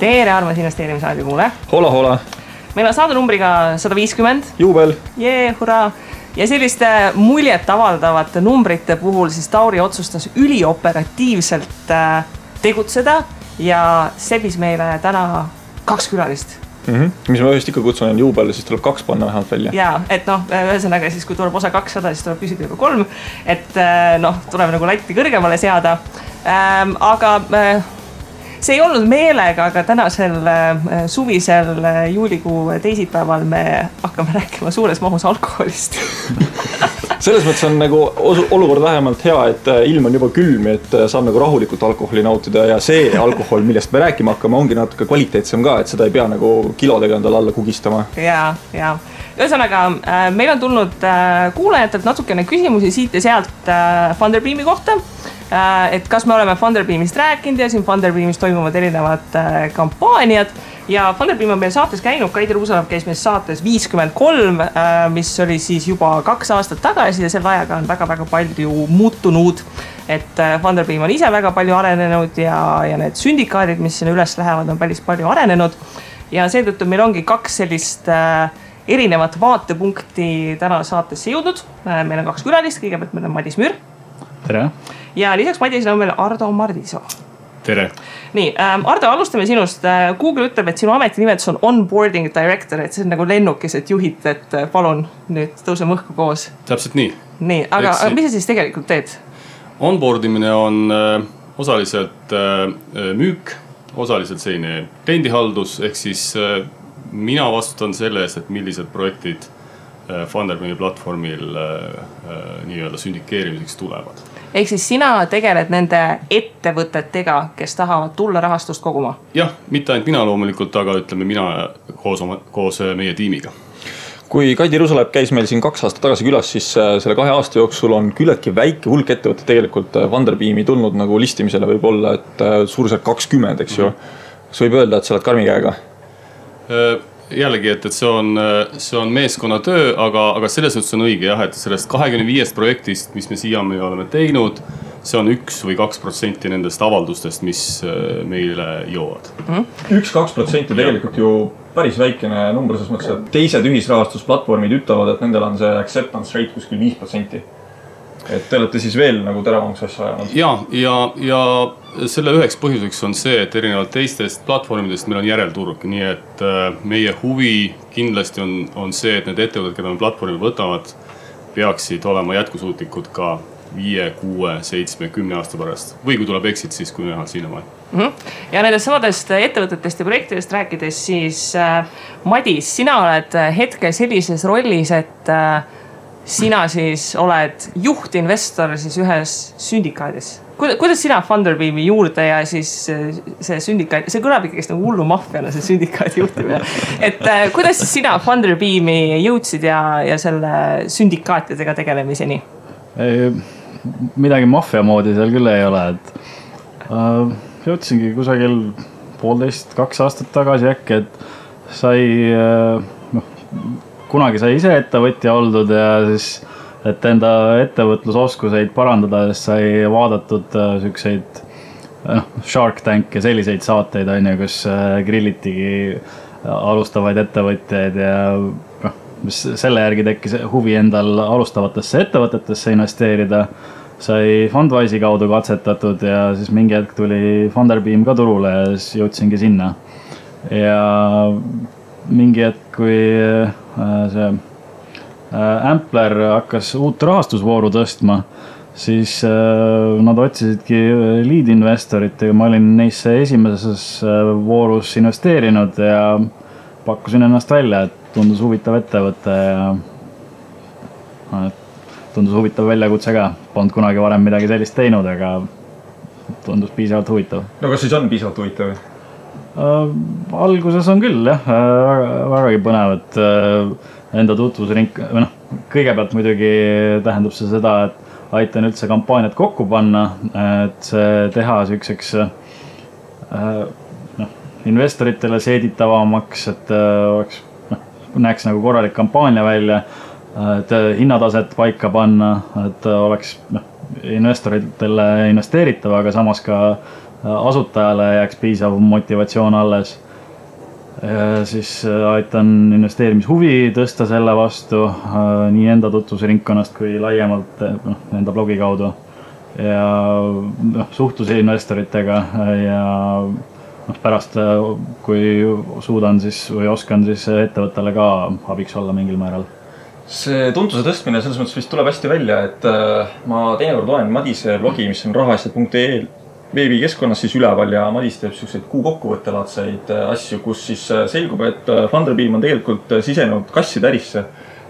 Tere, armas investeerimisraadi kuule. Hola, hola. Meil on saade numbriga 150. Juubel. Hurraa. Ja selliste muljet avaldavate numbrite puhul siis Tauri otsustas ülioperatiivselt tegutseda ja sebis meile täna 2 külalist. Mis ma ühest ikka kutsun juubel, siis tuleb 2 panna vähemalt välja. Jaa, et ühesõnaga siis kui tuleb osa 200, siis tuleb küsida juba 3. Et tuleb nagu latti kõrgemale seada. Aga see ei olnud meelega, aga tänasel suvisel juulikuu teisipäeval me hakkame rääkima suures mahus alkoholist. Selles mõttes on nagu olukord vähemalt hea, et ilm on juba külm, et saab nagu rahulikult alkoholi nautida ja see alkohol, millest me rääkima hakkame, ongi natuke kvaliteetsem ka, et seda ei pea nagu kilodega endale alla kugistama. Jaa. Ühesõnaga, meil on tulnud kuulajatelt natukene küsimusi siit ja sealt Funderbeami kohta. Et kas me oleme Funderbeamist rääkinud ja siin Funderbeamis toimuvad erinevad kampaaniad ja Funderbeam on meil saates käinud, Kaidi Ruusalav käis meil saates 53, mis oli siis juba 2 aastat tagasi ja selle ajaga on väga-väga palju muutunud, et Funderbeam on ise väga palju arenenud ja need sündikaadid, mis sinna üles lähevad, on päris palju arenenud ja seetõttu meil ongi 2 sellist erinevat vaatepunkti täna saatesse jõudnud. Meil on 2 külalist, kõigepealt meil on Madis Müür. Tere. Ja lisaks Madisele on meil Ardo Mardisoo. Tere. Nii, Ardo, alustame sinust. Google ütleb, et sinu ametinimetus on onboarding director, et see on nagu lennukis, et juhid, et palun nüüd tõuseme õhku koos. Täpselt nii. Nii, aga mis sa siis tegelikult teed? Onboardimine on osaliselt müük, osaliselt selline kliendihaldus, ehk siis mina vastutan selle eest, et millised projektid Funderbeami platvormil nii-öelda sündikeerimiseks tulevad. Ehk siis sina tegeled nende ettevõtetega, kes tahavad tulla rahastust koguma? Jah, mitte ainult mina loomulikult, aga ütleme mina koos meie tiimiga. Kui Kaidi Ruusalav käis meil siin 2 aastat tagasi külas, siis selle 2 aasta jooksul on küllaltki väike hulk ettevõtted tegelikult Funderbeami tulnud nagu listimisele võib olla, et suurusjärk 20, eks ju. Kas võib öelda, et sa oled karmi käega? Jällegi, et see on meeskonna töö, aga selles mõttes on õige jah, et sellest 25 projektist, mis me siiamaani oleme teinud, see on 1 või 2% nendest avaldustest, mis meile jõuavad. 1-2% tegelikult ju päris väikene number, selles mõttes, et teised ühisrahastusplatvormid ütlevad, et nendel on see acceptance rate kuskil 5%. Et te olete siis veel nagu teravamaks asja ajanud. Ja selle üheks põhjuseks on see, et erinevalt teistest platvormidest meil on järelturg, nii et meie huvi kindlasti on see, et need ettevõtted, keda me platvormi võtavad, peaksid olema jätkusuutlikud ka 5, 6, 7, 10 aasta pärast. Või kui tuleb exit, siis kui näha sinnamaal. Ja nendest samadest ettevõtetest ja projektidest rääkides, siis Madis, sina oled hetkel sellises rollis, et sina siis oled juhtinvestor siis ühes sündikaadis. Kuidas sina Funderbeami juurde ja siis see sündikaad, see kõlab ikkagi nagu hullu maffiana see sündikaadi juhtimine. Et kuidas sina Funderbeami jõudsid ja selle sündikaatidega tegelemiseni? Midagi maffia moodi seal küll ei ole, et jõudsingi kusagil 1,5-2 aastat tagasi äkki, et kunagi sai ise ettevõtja oldud ja siis, et enda ettevõtlusoskuseid parandada, siis sai vaadatud sükseid Shark Tank ja selliseid saateid, kus grillitigi alustavaid ettevõtjaid ja selle järgi tekkis huvi endal alustavatesse ettevõtetesse investeerida. Sai Fundwise'i kaudu katsetatud ja siis mingi hetk tuli Funderbeam ka turule ja siis jõudsingi sinna. Ja mingi hetk, kui see Ampler hakkas uut rahastusvooru tõstma, siis nad otsisidki lead-investorit ja ma olin neisse esimeses voorus investeerinud ja pakkusin ennast välja, et tundus huvitav ettevõte ja tundus huvitav väljakutse ka. Polnud kunagi varem midagi sellist teinud, aga tundus piisavalt huvitav. No kas siis on piisavalt huvitav? Alguses on küll, jah, vägagi põnev, et enda tutvusring, kõigepealt muidugi tähendab see seda, et aitan üldse kampaaniat kokku panna, et see teha sükseks investoritele seeditavamaks, et oleks, näeks nagu korralik kampaania välja, et hinnataset paika panna, et oleks investoritele investeeritav, aga samas ka asutajale jääks piisav motivatsioon alles. Siis aitan investeerimishuvi tõsta selle vastu nii enda tutvusringkonnast kui laiemalt enda blogi kaudu ja suhtluse investoritega ja pärast, kui suudan siis või oskan siis ettevõttele ka abiks olla mingil määral. See tuntuse tõstmine selles mõttes vist tuleb hästi välja, et ma teinekord loen Madise blogi, mis on rahaasjad.ee veebikeskkonnas siis üleval ja Madis teeb selliseid kuukokkuvõttelaadseid asju, kus siis selgub, et Funderbeam on tegelikult sisenenud kasside ärisse.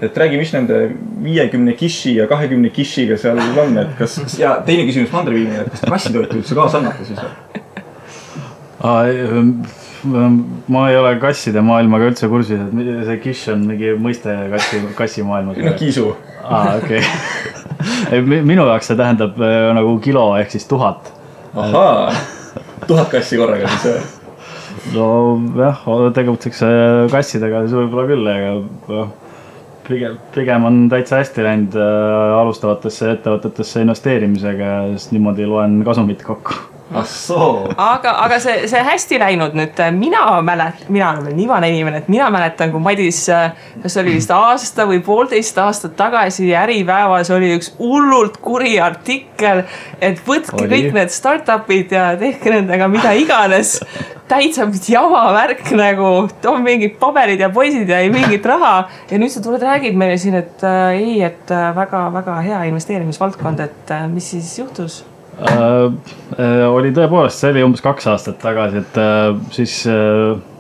Et räägi, mis nende 50 kiši ja 20 kishiga seal on, et kas, ja teine küsimus Funderbeamile, et kas kassitoitu üldse kaasa annate siis? Ma ei ole kasside maailmaga üldse kursis, et see kiš on mingi mõiste kassi maailmas. No kiisu. Okei. Minu jaoks see tähendab nagu kilo ehk siis 1000. Ahaa, 1000 kassi korraga siis. No jah, tegutseks kassidega siis võib-olla küll, aga pigem on täitsa hästi läinud alustavatesse ettevõtetesse investeerimisega ja siis niimoodi loen kasumit kokku. Aga see hästi läinud nüüd, mina olen veel nii vana inimene, et mina mäletan, kui Madis, kas oli vist aasta või 1,5 aastat tagasi Äripäevas oli üks hullult kuri artikkel, et võtke kõik need startupid ja tehke nendega mida iganes. Täitsa jama värk nagu, on mingid paberid ja poisid ja ei mingit raha. Ja nüüd sa tuled räägid meile siin, et et väga hea investeerimisvaldkond, et mis siis juhtus? Oli tõepoolest, see oli umbes 2 aastat tagasi, et siis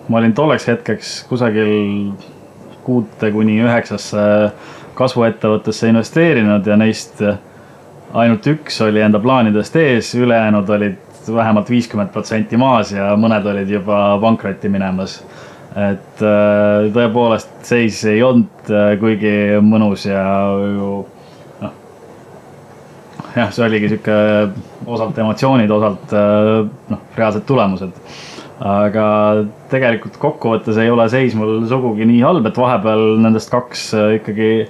ma olin tolleks hetkeks kusagil 6-9 kasvuettevõttesse investeerinud ja neist ainult üks oli enda plaanidest ees, ülejäänud olid vähemalt 50% maas ja mõned olid juba pankrotti minemas. Et tõepoolest seis ei olnud kuigi mõnus ja jah, see oligi siuke osalt emotsioonid, osalt reaalsed tulemused. Aga tegelikult kokkuvõttes ei ole seis mul sugugi nii halb, et vahepeal nendest 2 ikkagi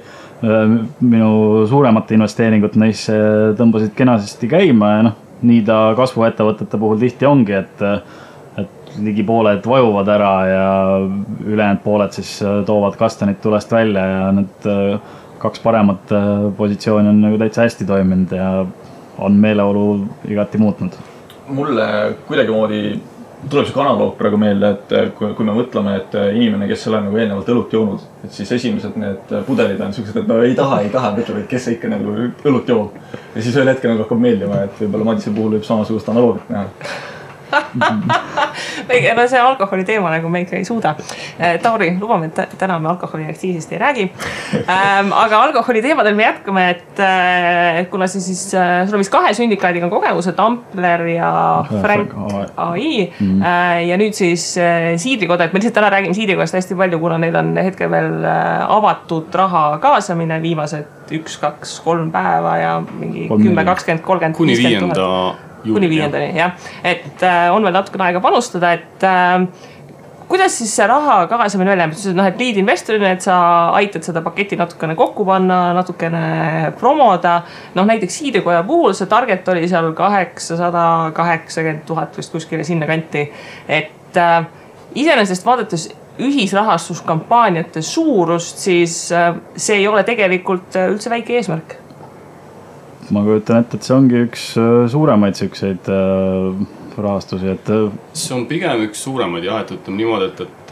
minu suuremate investeeringut neisse tõmbasid kenasti käima ja nii ta kasvuettevõtete puhul tihti ongi, et ligi pooled vajuvad ära ja ülejäänud pooled siis toovad kastanid tulest välja ja need 2 paremat positsiooni on nagu täitsa hästi toiminud ja on meeleolu igati muutnud. Mulle kuidagi moodi tuleb see analoog praegu meelde, et kui me mõtleme, et inimene, kes ei ole nagu eelnevalt õlut joonud, et siis esimesed need pudelid on sellised, et no ei taha, mõtleb, et kes ikka nagu õlut joob. Ja siis ühel hetkel nagu hakkab meeldima, et võib-olla Madise puhul võib samasugust analoogit näha. No see alkoholi teema nagu me ikka ei suuda. Tauri, lubame, et täna me alkoholiaktsiisist ei räägi. Aga alkoholi teemadel me jätkame, et kuna siis sul on vist 2 sündikaadiga on kogemused, Ampler ja Frank AI ja nüüd siis Siidrikoda, et me lihtsalt täna räägime Siidrikodast hästi palju, kuna neil on hetkel veel avatud raha kaasamine viimased 1, 2, 3 päeva ja mingi 10, 20, 30, 50 000. Kuni 5. jah. Et on veel natukene aega panustada, et kuidas siis see raha kaasamine välja, et lead investorina, et sa aitad seda paketti natukene kokku panna, natukene promoda. Näiteks Siidrikoja puhul see target oli seal 880 000 vist kuskile sinna kanti. Et iseenesest vaadates ühisrahastuskampaaniate suurust, siis see ei ole tegelikult üldse väike eesmärk. Ma kujutan ette, et see ongi üks suuremaid sükseid rahastusi, et see on pigem üks suuremaid jah, et ütleme niimoodi, et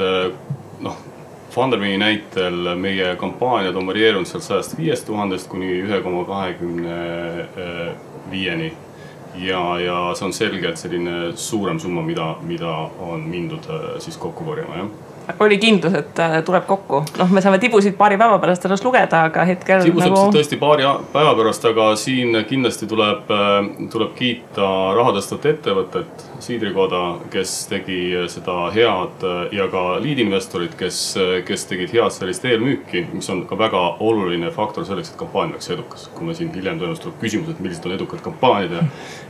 Funderbeami näitel meie kampaaniad on varieerunud seal 105 000 kuni 1,25 ja see on selgelt selline suurem summa, mida on mindud siis kokku korjama, jah. Oli kindlus, et tuleb kokku. Me saame tibusid paari päeva pärast alles lugeda, aga hetkel tibusid nagu tõesti paari päeva pärast, aga siin kindlasti tuleb kiita rahadõstvat ettevõtet, Siidrikoda, kes tegi seda head ja ka lead-investorid, kes tegid head sellist eelmüüki, mis on ka väga oluline faktor selleks, et kampaania oleks edukas. Kui me siin hiljem tõenäoliselt tuleb küsimus, et millised on edukad kampaaniad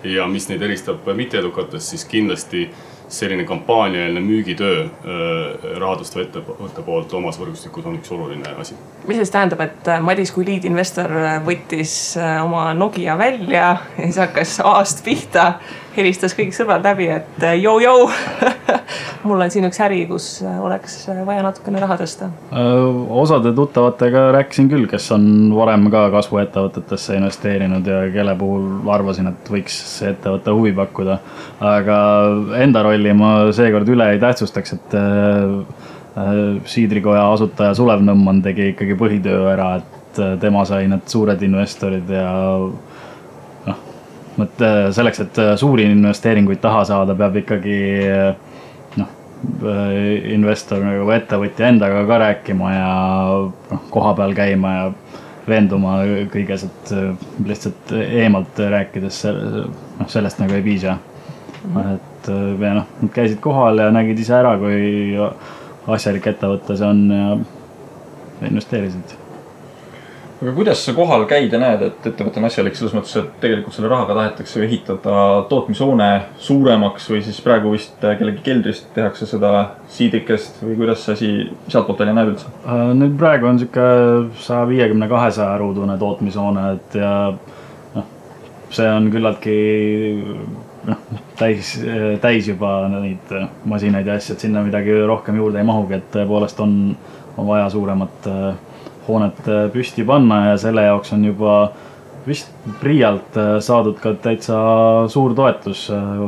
ja mis neid eristab mitte edukatest, siis kindlasti selline kampaaniaeelne müügitöö rahadõstva ettevõtte poolt omas võrgustikus on üks oluline asi. Mis siis tähendab, et Madis kui lead-investor võttis oma Nokia välja ja siis hakkas A-st pihta helistas kõik sõbrad läbi, et joo, mul on siin üks äri, kus oleks vaja natukene raha tõsta. Osade tuttavatega rääkisin küll, kes on varem ka kasvuettevõtetesse investeerinud ja kelle puhul arvasin, et võiks see ettevõtte huvi pakkuda. Aga enda rolli ma seekord üle ei tähtsustaks, et Siidrikoja asutaja Sulev Nõmman tegi ikkagi põhitöö ära, et tema sai need suured investorid ja selleks, et suuri investeeringuid taha saada, peab ikkagi investor nagu ettevõtja endaga ka rääkima ja koha peal käima ja veenduma kõiges, et lihtsalt eemalt rääkides sellest nagu ei piisa. Et nad käisid kohal ja nägid ise ära, kui asjalik ettevõtte see on ja investeerisid. Aga kuidas sa kohal käid ja näed, et ettevõte on asjalik selles mõttes, et tegelikult selle rahaga tahetakse ehitada tootmishoone suuremaks või siis praegu vist kellegi keldrist tehakse seda siidrikest või kuidas see asi sealtpoolt välja näeb üldse? Nüüd praegu on siuke 150-200 ruudune tootmishoone, et ja see on küllaltki täis juba neid masinaid ja asjad, sinna midagi rohkem juurde ei mahugi, et tõepoolest on vaja suuremat hoonet püsti panna ja selle jaoks on juba vist Priialt saadud ka täitsa suur toetus,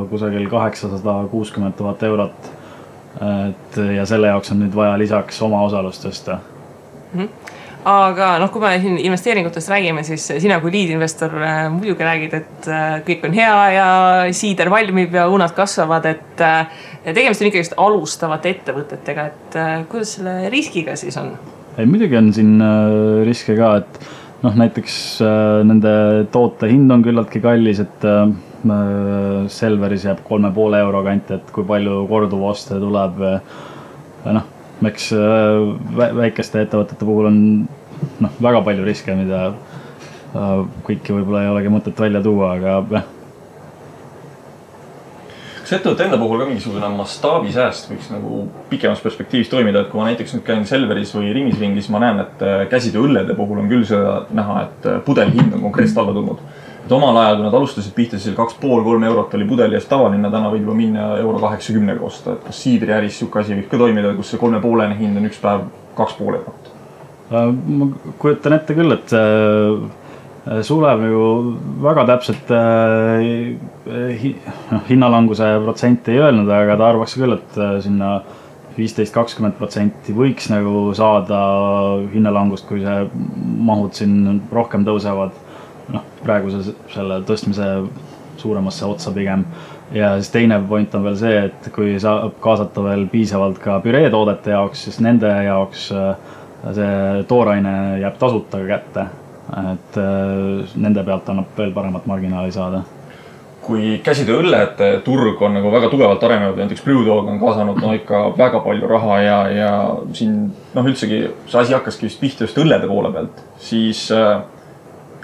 kusagil 860 000 eurot. Ja selle jaoks on nüüd vaja lisaks oma osalust tõsta. Aga kui me siin investeeringutest räägime, siis sina kui liidinvestor muidugi räägid, et kõik on hea ja siider valmib ja unad kasvavad, et tegemist on ikkagi alustavate ettevõtetega, et kuidas selle riskiga siis on? Ei, muidugi on siin riske ka, et näiteks nende toote hind on küllaltki kallis, et Selveris jääb 3,5 euro kanti, et kui palju korduvoste tuleb. Eks väikeste ettevõtete puhul on väga palju riske, mida kõiki võib-olla ei olegi mõtet välja tuua, aga Kas ettevõtte enda puhul ka mingisugune mastaabisääst võiks nagu pikemas perspektiivis toimida, et kui ma näiteks nüüd käin Selveris või Ringis, ma näen, et käsitöö õllede puhul on küll seda näha, et pudeli hind on konkreetselt alla tulnud. Et omal ajal, kui nad alustasid pihta, siis 2,5-3 eurot oli pudeli eest tavaline, täna võib juba minna €80 osta. Et kas siidri äris siuke asi võib ka toimida, kus see 3,5 hind on üks päev 2,5 eurot? Ma kujutan ette küll, et Sulev nagu väga täpselt hinnalanguse protsenti ei öelnud, aga ta arvaks küll, et sinna 15-20% võiks nagu saada hinnalangust, kui see mahud siin rohkem tõusevad. Praegu selle tõstmise suuremasse otsa pigem. Ja siis teine point on veel see, et kui saab kaasata veel piisavalt ka püreetoodete jaoks, siis nende jaoks see tooraine jääb tasuta kätte. Et nende pealt annab veel paremat marginaali saada. Kui käsitöö õllete turg on nagu väga tugevalt arenenud, näiteks Brewdog on kaasanud ikka väga palju raha ja siin üldsegi see asi hakkaski vist pihta just õllede poole pealt, siis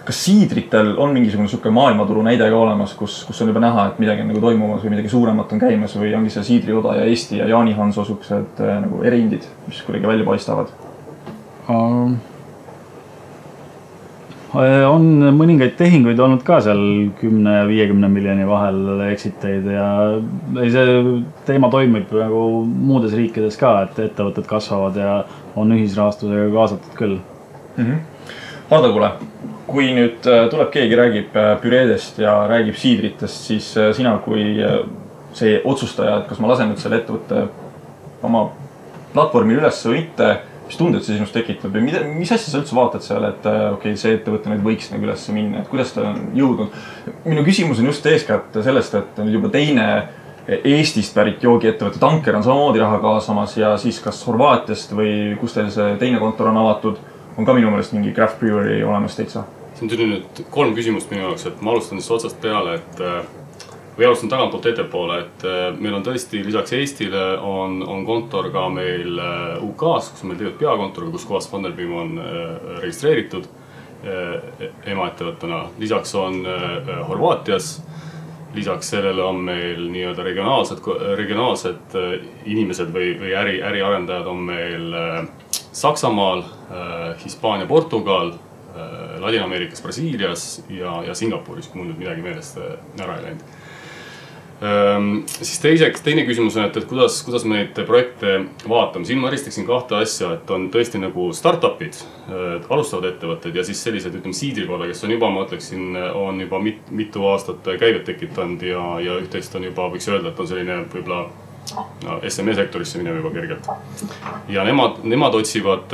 kas siidritel on mingisugune suke maailmaturu näide ka olemas, kus on juba näha, et midagi on nagu toimumas või midagi suuremat on käimas või ongi see Siidrioda ja Eesti ja Jaani Hanso suksed nagu erindid, mis kuidagi välja paistavad? On mõningaid tehinguid olnud ka seal 10 ja 50 miljoni vahel exiteid ja see teema toimib nagu muudes riikides ka, et ettevõtted kasvavad ja on ühisrahastusega kaasatud küll. Hardo, kuule, kui nüüd tuleb keegi, räägib püreedest ja räägib siidritest, siis sina kui see otsustaja, et kas ma lasen nüüd selle ettevõtte oma platvormil üles või mitte, mis tunded see sinust tekitab või mis asja sa üldse vaatad seal, et see ettevõte nüüd võiks nagu üles minna, et kuidas ta on jõudnud? Minu küsimus on just eeskätt sellest, et on juba teine Eestist pärit joogiettevõtte Tanker on samamoodi raha kaasamas ja siis kas Horvaatiast või kus teil see teine kontor on avatud, on ka minu meelest mingi craft brewery olemas teitsa. See on tuli nüüd 3 küsimust minu jaoks, et ma alustan siis otsast peale, või alustan tagantpoolt ettepoole, et meil on tõesti lisaks Eestile on kontor ka meil UK-s, kus on meil tegelikult peakontor, kus kohas Funderbeam on registreeritud emaettevõttena. Lisaks on Horvaatias, lisaks sellele on meil nii-öelda regionaalsed inimesed või äriarendajad on meil Saksamaal, Hispaania, Portugal, Ladina-Ameerikas, Brasiilias ja Singapuris, kui mul nüüd midagi meelest ära ei läinud. Siis teine küsimus on, et kuidas me neid projekte vaatame. Siin ma eristaksin kahte asja, et on tõesti nagu startupid, alustavad ettevõtted ja siis sellised, ütleme, siidrikoda, kes on juba, ma ütleksin, on juba mitu aastat käivet tekitanud ja üht-teist on juba, võiks öelda, et on selline võib-olla SME sektorisse minev juba kergelt. Ja nemad otsivad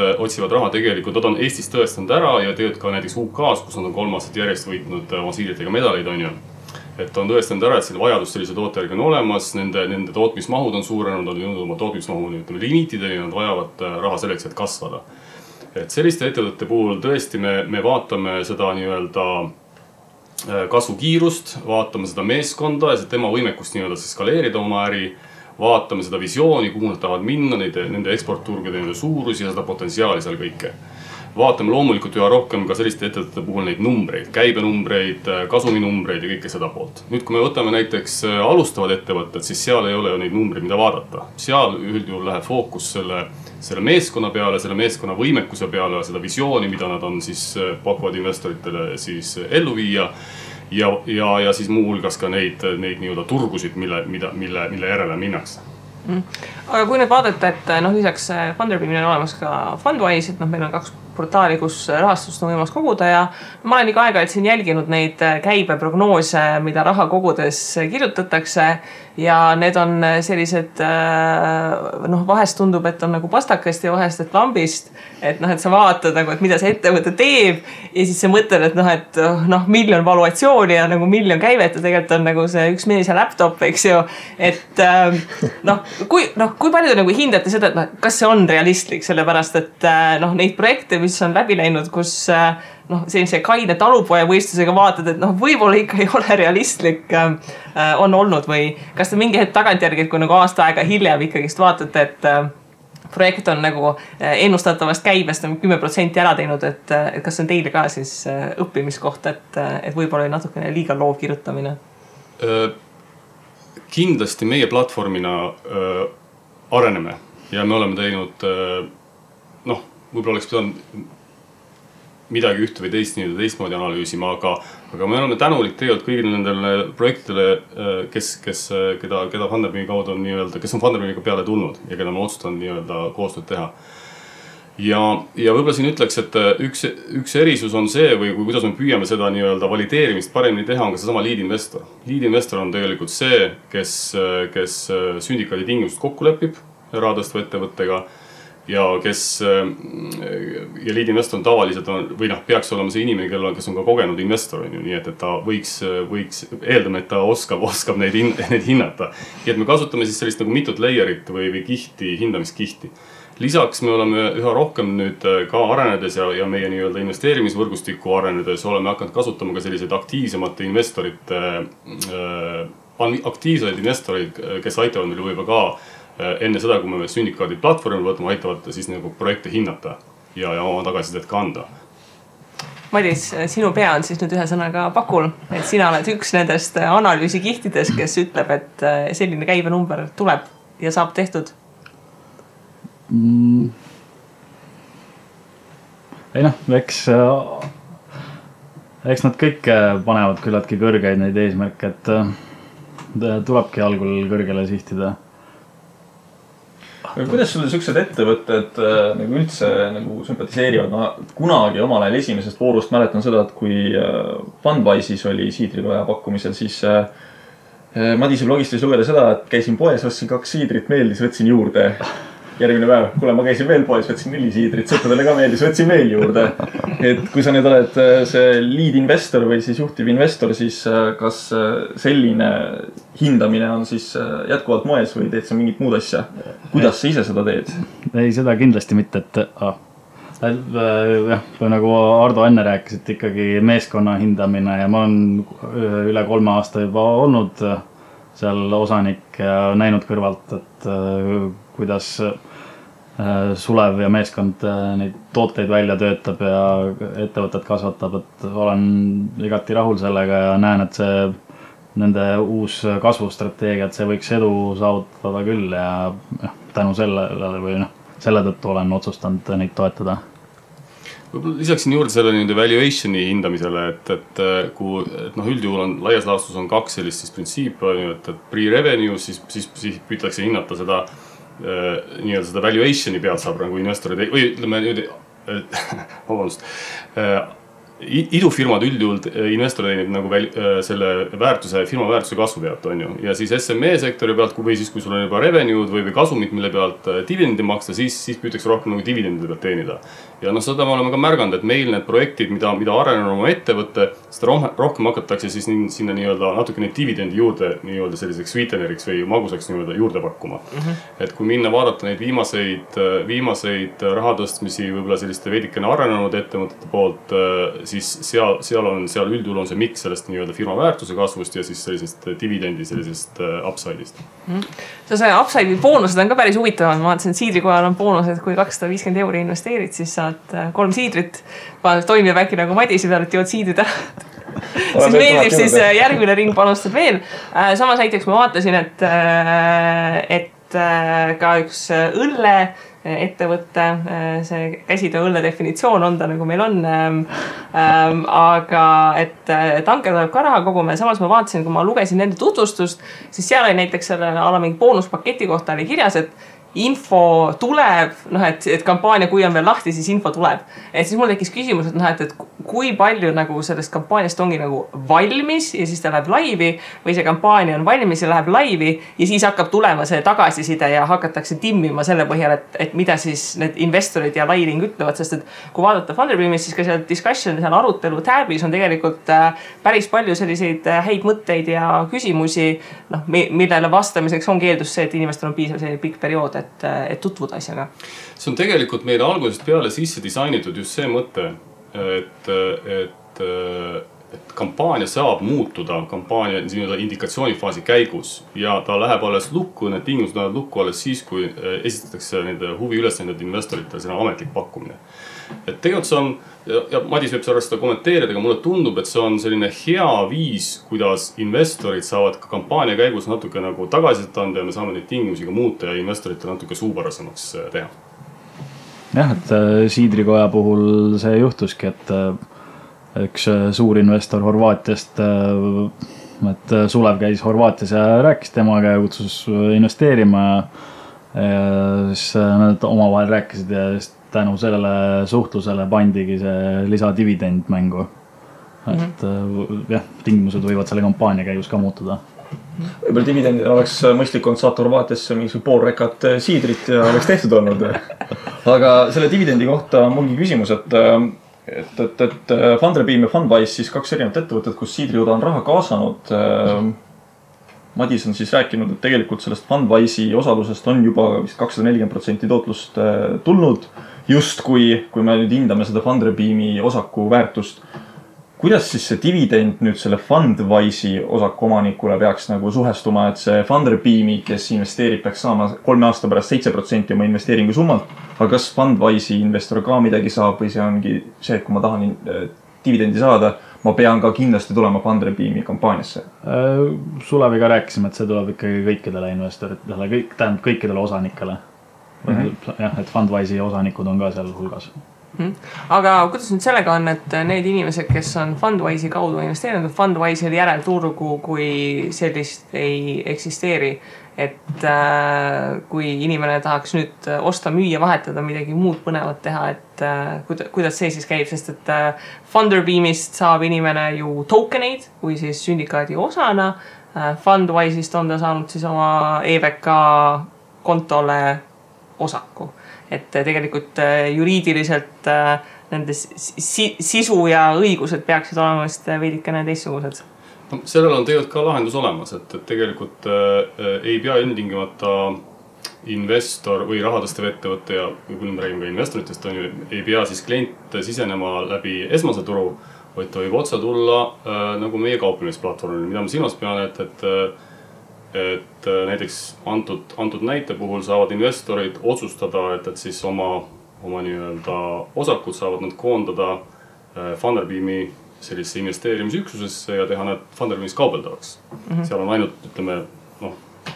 raha tegelikult, nad on Eestis tõestanud ära ja tegelikult ka näiteks UK-s, kus nad on 3 aastat järjest võitnud oma siidritega medaleid, on ju. Et on tõestanud ära, et selle vajadus sellise toote järgi on olemas, nende tootmismahud on suurenenud, nad on jõudnud oma tootmismahu limiitideni, nad vajavad raha selleks, et kasvada. Et selliste ettevõtete puhul tõesti me vaatame seda nii-öelda kasvukiirust, vaatame seda meeskonda ja tema võimekust nii-öelda skaleerida oma äri, vaatame seda visiooni, kuhu nad tahavad minna, nende eksportturgude nende suurusi ja seda potentsiaali seal kõike. Vaatame loomulikult üha rohkem ka selliste ettevõtete puhul neid numbreid, käibenumbreid, kasuminumbreid ja kõike seda poolt. Nüüd, kui me võtame näiteks alustavad ettevõtted, siis seal ei ole ju neid numbreid, mida vaadata. Seal üldjuhul läheb fookus selle meeskonna peale, selle meeskonna võimekuse peale, seda visiooni, mida nad on siis pakuvad investoritele siis ellu viia. Ja siis muu hulgas ka neid nii-öelda turgusid, mille järele minnakse. Aga kui nüüd vaadata, et lisaks Funderbeamil on olemas ka Fundwise, et meil on 2 portaali, kus rahastust on võimalus koguda ja ma olen iga aega siin jälginud neid käibeprognoose, mida raha kogudes kirjutatakse ja need on sellised, vahest tundub, et on nagu pastakast ja vahest, et lambist, et sa vaatad nagu, et mida see ettevõte teeb ja siis sa mõtled, et miljon valuatsiooni ja nagu miljon käivet ja tegelikult on nagu see üks mees ja laptop, eks ju, et kui palju te nagu hindate seda, et kas see on realistlik, sellepärast, et neid projekte, mis on läbi läinud, kus sellise kaine talupoja võistlusega vaatad, et võib-olla ikka ei ole realistlik on olnud või kas te mingi hetk tagantjärgi, kui nagu aasta aega hiljem ikkagist vaatate, et projekt on nagu ennustatavast käibest 10% ära teinud, et kas on teile ka siis õppimiskoht, et võib-olla oli natukene liiga loov kirjutamine? Kindlasti meie platvormina areneme ja me oleme teinud, võib-olla oleks pidanud midagi ühte või teistmoodi analüüsima, aga me oleme tänulik tegelikult kõigile nendele projektidele, keda Funderbeami kaudu on nii-öelda, kes on Funderbeamiga peale tulnud ja keda me otsustanud nii-öelda koostööd teha. Ja võib-olla siin ütleks, et üks erisus on see või kuidas me püüame seda nii-öelda valideerimist paremini teha, on ka seesama lead investor. Lead investor on tegelikult see, kes sündikaadi tingimused kokku lepib rahadõstva ettevõttega ja lead investor on tavaliselt peaks olema see inimene, kes on ka kogenud investor, nii et ta võiks eeldama, et ta oskab neid hinnata. Ja et me kasutame siis sellist nagu mitut layerit või kihti, hindamiskihti. Lisaks me oleme üha rohkem nüüd ka arenedes ja meie nii-öelda investeerimisvõrgustiku arenedes oleme hakanud kasutama ka selliseid aktiivseid investoreid, kes aitavad meil võib-olla ka enne seda, kui me sündikaadi platvormil võtame, aitavad siis nagu projekte hinnata ja oma tagasisidet ka anda. Madis, sinu pea on siis nüüd ühe sõnaga pakul, et sina oled üks nendest analüüsikihtidest, kes ütleb, et selline käibenumber tuleb ja saab tehtud. Ei eks nad kõik panevad küllaltki kõrgeid neid eesmärke, et tulebki algul kõrgele sihtida. Kuidas sulle sellised ettevõtted nagu üldse nagu sümpatiseerivad? Kunagi omal ajal esimesest voorust mäletan seda, et kui Fundwise'is oli siidrikoja pakkumisel, siis Madise blogist võis lugeda seda, et käisin poes, ostsin 2 siidrit, meeldis, võtsin juurde. Järgmine päev, kuule, ma käisin veel poes, võtsin 4 siidrit, sõpradele ka meeldis, võtsin veel juurde. Et kui sa nüüd oled see lead investor või siis juhtiv investor, siis kas selline hindamine on siis jätkuvalt moes või teed sa mingit muud asja? Kuidas sa ise seda teed? Ei, seda kindlasti mitte, nagu Ardo enne rääkis, et ikkagi meeskonna hindamine ja ma olen üle 3 aasta juba olnud seal osanik ja näinud kõrvalt, et kuidas Sulev ja meeskond neid tooteid välja töötab ja ettevõtet kasvatab, et olen igati rahul sellega ja näen, et see nende uus kasvustrateegia, et see võiks edu saavutada küll ja tänu sellele või selle tõttu olen otsustanud neid toetada. Võib-olla lisaksin juurde selle valuationi hindamisele, et üldjuhul on laias laastus on 2 sellist siis printsiipi, et pre-revenue, siis püütakse hinnata seda nii-öelda seda valuationi pealt saab nagu investorid, või ütleme nüüd, vabandust, idufirmad üldjuhul investor teenib nagu selle väärtuse, firma väärtuse kasvu pealt, on ju. Ja siis SME sektori pealt, või siis kui sul on juba revenue'd või kasumit, mille pealt dividendi maksta, siis püütakse rohkem nagu dividendide pealt teenida. Ja seda me oleme ka märganud, et meil need projektid, mida arenenud oma ettevõtte, seda rohkem hakatakse siis sinna nii-öelda natuke neid dividendi juurde nii-öelda selliseks sweeteneriks või magusaks nii-öelda juurde pakkuma. Et kui minna vaadata neid viimaseid rahatõstmisi võib-olla selliste veidikene arenenud ettevõtete poolt, siis seal üldjuhul on see miks sellest nii-öelda firma väärtuse kasvust ja siis sellisest dividendi, sellisest upside'ist. See upside'i boonused on ka päris huvitavad. Ma vaatasin, et siidrikojal on boonused, kui 250 € investeerid, siis saad 3 siidrit. Toimib äkki nagu Madisi peal, et jood siidrid ära. Siis meeldib siis järgmine ring panustad veel. Samas näiteks ma vaatasin, et ka üks õlle ettevõtte, see käsitöö õlle definitsioon on ta nagu meil on, aga et tanker tuleb ka raha koguma ja samas ma vaatasin, kui ma lugesin nende tutvustust, siis seal oli näiteks selle mingi boonuspaketi kohta oli kirjas, et info tuleb, et kampaania, kui on veel lahti, siis info tuleb. Et siis mul tekkis küsimus, et kui palju nagu sellest kampaaniast ongi nagu valmis ja siis ta läheb laivi või see kampaania on valmis ja läheb laivi ja siis hakkab tulema see tagasiside ja hakatakse timmima selle põhjal, et mida siis need investorid ja lairing ütlevad, sest et kui vaadata Funderbeamis, siis ka seal discussion, seal arutelu tabis on tegelikult päris palju selliseid häid mõtteid ja küsimusi, millele vastamiseks ongi eeldus see, et inimestel on piisav selline pikk periood, et tutvuda asjaga. See on tegelikult meile algusest peale sisse disainitud just see mõte, et kampaania saab muutuda kampaania indikatsioonifaasi käigus ja ta läheb alles lukku, need tingimused lähevad lukku alles siis, kui esitatakse nende huvi ülesanded investoritele, see on ametlik pakkumine. Et tegelikult see on, ja Madis võib seda kommenteerida, aga mulle tundub, et see on selline hea viis, kuidas investorid saavad ka kampaania käigus natuke nagu tagasisidet anda ja me saame neid tingimusi ka muuta ja investoritele natuke suupärasemaks teha. Jah, et siidrikoja puhul see juhtuski, et üks suur investor Horvaatiast, et Sulev käis Horvaatias ja rääkis temaga ja kutsus investeerima ja siis nad omavahel rääkisid ja tänu sellele suhtlusele pandigi see lisadividend mängu. Et jah, tingimused võivad selle kampaania käigus ka muutuda. Võib-olla dividendid oleks mõistlik olnud saata Horvaatiasse mingi pool rekat siidrit ja oleks tehtud olnud. Aga selle dividendi kohta on mulgi küsimus, et Funderbeam ja Fundwise siis 2 erinevat ettevõtet, kus siidrijuda on raha kaasanud. Madis on siis rääkinud, et tegelikult sellest Fundwise'i osalusest on juba vist 240% tootlust tulnud. Just kui me nüüd hindame seda Funderbeami osaku väärtust, kuidas siis see dividend nüüd selle Fundwise'i osaku omanikule peaks nagu suhestuma, et see Funderbeami, kes investeerib, peaks saama 3 aasta pärast 7% oma investeeringu summalt, aga kas Fundwise'i investor ka midagi saab või see ongi see, et kui ma tahan dividendi saada, ma pean ka kindlasti tulema Funderbeami kampaaniasse? Suleviga rääkisime, et see tuleb ikkagi kõikidele investoritele, kõikidele osanikele. Jah, et Fundwise'i osanikud on ka seal hulgas. Aga kuidas nüüd sellega on, et need inimesed, kes on Fundwise'i kaudu investeerinud, Fundwise'il järelturgu kui sellist ei eksisteeri, et kui inimene tahaks nüüd osta, müüa, vahetada, midagi muud põnevat teha, et kuidas see siis käib, sest et Funderbeamist saab inimene ju tokeneid või siis sündikaadi osana, Fundwise'ist on ta saanud siis oma EVK kontole osaku. Et tegelikult juriidiliselt nende sisu ja õigused peaksid olema veidikene teistsugused. Sellel on tegelikult ka lahendus olemas, et tegelikult ei pea ilmtingimata investor või rahatõstev ettevõtte ja kui me räägime ka investoritest, ei pea siis klient sisenema läbi esmase turu, vaid ta võib otse tulla nagu meie kauplemisplatvormil, mida ma silmas pean, et näiteks antud näite puhul saavad investorid otsustada, et siis oma nii-öelda osakud saavad nad koondada Funderbeami sellise investeerimisüksusesse ja teha nad Funderbeamis kaubeldavaks. Seal on ainult, ütleme,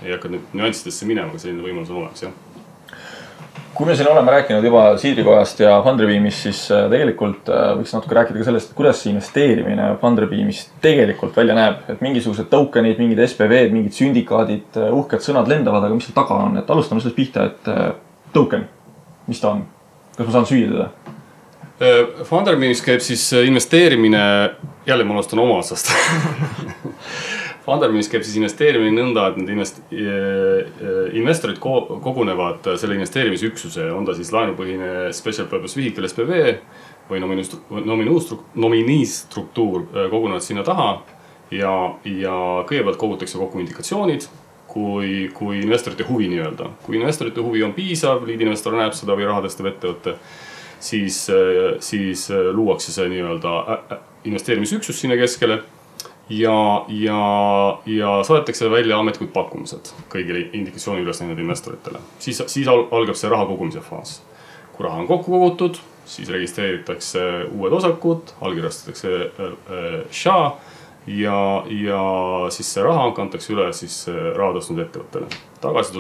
ei hakka nüüd nüanssidesse minema, aga selline võimalus on olemas, jah. kui me siin oleme rääkinud juba Siidrikojast ja Funderbeamist, siis tegelikult võiks natuke rääkida ka sellest, kuidas see investeerimine Funderbeamist tegelikult välja näeb. Et mingisugused tokenid, mingid SPV-d, mingid sündikaadid, uhked sõnad lendavad, aga mis seal taga on? Et alustame sellest pihta, et token, mis ta on? Kas ma saan süüa teda? Funderbeamis käib siis investeerimine, jälle ma alustan oma otsast. Funderbeamis käib siis investeerimine nõnda, et need investorid kogunevad selle investeerimisüksuse, on ta siis laenupõhine special purpose vehicle SPV või nomiinistruktuur kogunevad sinna taha ja kõigepealt kogutakse kokku indikatsioonid, kui investorite huvi nii-öelda. Kui investorite huvi on piisav, liidinvestor näeb seda või rahadestav ettevõtte, siis luuakse see nii-öelda investeerimisüksus sinna keskele ja saadetakse välja ametlikud pakkumised kõigile indikatsiooni üles näinud investoritele. Siis algab see raha kogumise faas. Kui raha on kokku kogutud, siis registreeritakse uued osakud, allkirjastatakse SHA ja siis see raha kantakse üle siis raha tõstnud ettevõttele. Tagasi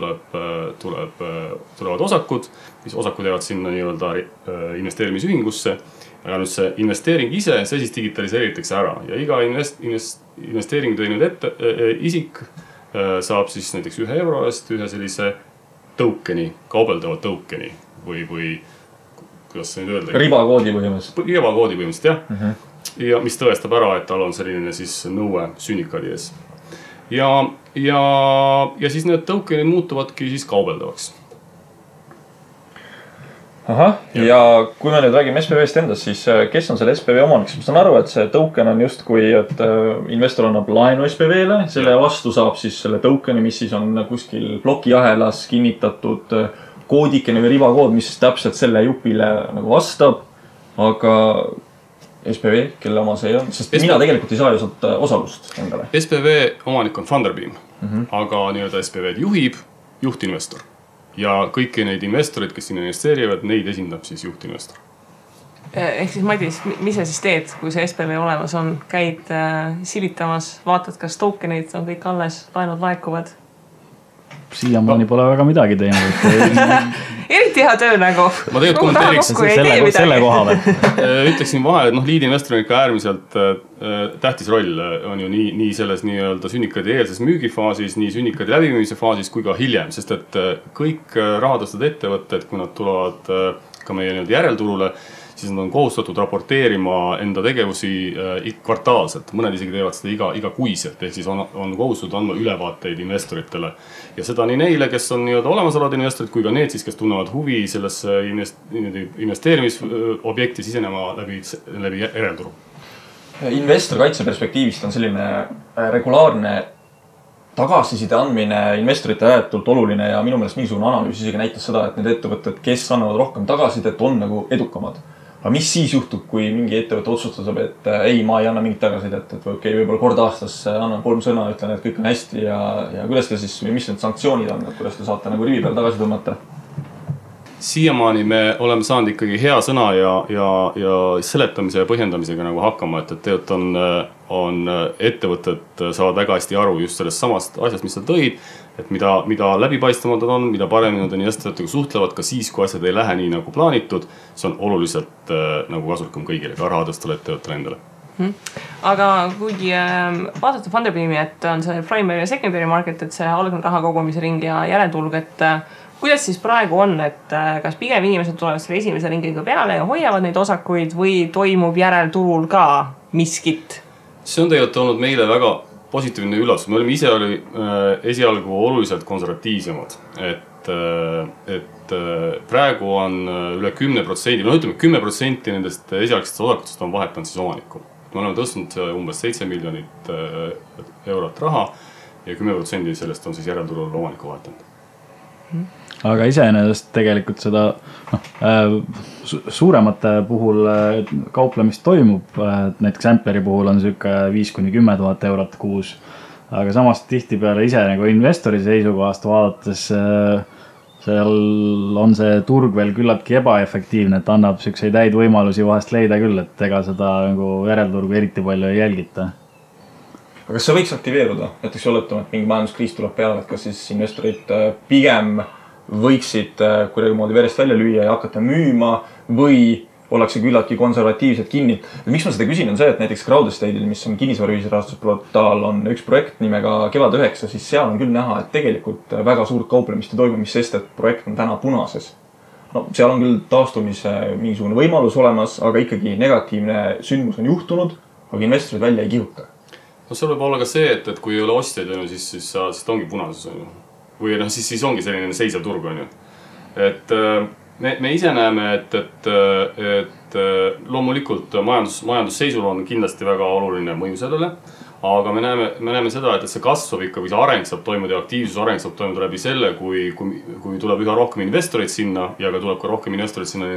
tulevad osakud, mis osakud jäävad sinna nii-öelda investeerimisühingusse. Aga nüüd see investeering ise, see siis digitaliseeritakse ära ja iga investeering teinud isik saab siis näiteks €1 eest ühe sellise tokeni, kaubeldava tokeni või kuidas see nüüd öelda? Ribakoodi põhimõtteliselt. Ribakoodi põhimõtteliselt, jah. Ja mis tõestab ära, et tal on selline siis nõue sünnikaadi ees. Ja siis need tokenid muutuvadki siis kaubeldavaks. Aha, ja kui me nüüd räägime SPV-st endast, siis kes on selle SPV omanik? Ma saan aru, et see token on just kui, et investor annab laenu SPV-le, selle vastu saab siis selle tokeni, mis siis on kuskil blokiahelas kinnitatud koodikene või ribakood, mis täpselt selle jupile nagu vastab, aga SPV, kelle oma see on, sest mina tegelikult ei saa ju sealt osalust endale. SPV omanik on Funderbeam, aga nii-öelda SPV-d juhib juhtinvestor. Ja kõiki neid investorid, kes sinna investeerivad, neid esindab siis juhtinvestor. Ehk siis Madis, mis sa siis teed, kui see SPV olemas on? Käid silitamas, vaatad, kas tokenid on kõik alles, laenud laekuvad? Siiamaani pole väga midagi teinud. Eriti hea töö nagu. Ma tegelikult kommenteeriks selle kohale. Ütleksin vahel, et liidinvestor on ikka äärmiselt tähtis roll on ju nii selles nii-öelda sünnikaadi eelses müügifaasis, nii sünnikaadi läbimüümise faasis kui ka hiljem, sest et kõik rahadõstud ettevõtted, kui nad tulevad ka meie nii-öelda järelturule, siis nad on kohustatud raporteerima enda tegevusi kvartaalselt. Mõned isegi teevad seda iga kuiselt, ehk siis on kohustatud andma ülevaateid investoritele. Ja seda nii neile, kes on nii-öelda olemasolevad investorid, kui ka need siis, kes tunnevad huvi sellesse investeerimisobjekti sisenema läbi järelturu. Investorkaitse perspektiivist on selline regulaarne tagasiside andmine investorite ääretult oluline ja minu meelest mingisugune analüüs isegi näitas seda, et need ettevõtted, kes annavad rohkem tagasisidet, on nagu edukamad. Aga mis siis juhtub, kui mingi ettevõte otsustab, et ei, ma ei anna mingit tagasisidet, et võib-olla kord aastas annan 3 sõna, ütlen, et kõik on hästi ja kuidas te siis, mis need sanktsioonid on, et kuidas te saate nagu rivi peal tagasi tõmmata? Siiamaani me oleme saanud ikkagi hea sõna ja seletamise ja põhjendamisega nagu hakkama, et tegelikult on ettevõtted saavad väga hästi aru just sellest samast asjast, mis sa tõid, et mida läbipaistvamad on, mida paremini nad investoritega suhtlevad ka siis, kui asjad ei lähe nii nagu plaanitud, see on oluliselt nagu kasulikum kõigile, ka rahadõstule ettevõttele endale. Aga kuigi vaadata Funderbeami, et on see primary ja secondary market, et see algne raha kogumise ring ja järeltulg, et kuidas siis praegu on, et kas pigem inimesed tulevad selle esimese ringiga peale ja hoiavad neid osakuid või toimub järelturul ka miskit? See on tegelikult olnud meile väga positiivne üllatus. Me olime ise esialgu oluliselt konservatiivsemad, et praegu on üle 10%, no ütleme 10% nendest esialgsetest osakutest on vahetanud siis omanikku. Me oleme tõstnud umbes 7 miljonit eurot raha ja 10% sellest on siis järelturul omanikku vahetanud. Aga iseenesest tegelikult seda suuremate puhul kauplemist toimub, näiteks Ampleri puhul on selline 5-10 000 eurot kuus, aga samas tihti peale ise nagu investori seisukohast vaadates seal on see turg veel küllaltki ebaefektiivne, et annab selliseid häid võimalusi vahest leida küll, et ega seda nagu järelturgu eriti palju ei jälgita. Aga kas see võiks aktiveeruda? Näiteks oletame, et mingi majanduskriis tuleb peale, et kas siis investorid pigem võiksid kuidagi moodi verest välja lüüa ja hakata müüma või ollakse küllaltki konservatiivselt kinni. Miks ma seda küsin on see, et näiteks Crowdestate'il, mis on kinnisvaraühisrahastusportaal, on üks projekt nimega Kevad 9, siis seal on küll näha, et tegelikult väga suurt kauplemist ei toimu, mis sest, et projekt on täna punases. No, seal on küll taastumise mingisugune võimalus olemas, aga ikkagi negatiivne sündmus on juhtunud, aga investorid välja ei kihuta. No seal võib olla ka see, et kui ei ole ostjaid, siis ta ongi punases. Või siis ongi selline seisev turg. Et me ise näeme, et loomulikult majandusseisul on kindlasti väga oluline mõju sellele, aga me näeme seda, et see kasv ikka või see areng saab toimuda ja aktiivsus areng saab toimuda läbi selle, kui tuleb üha rohkem investoreid sinna ja ka tuleb ka rohkem investoreid sinna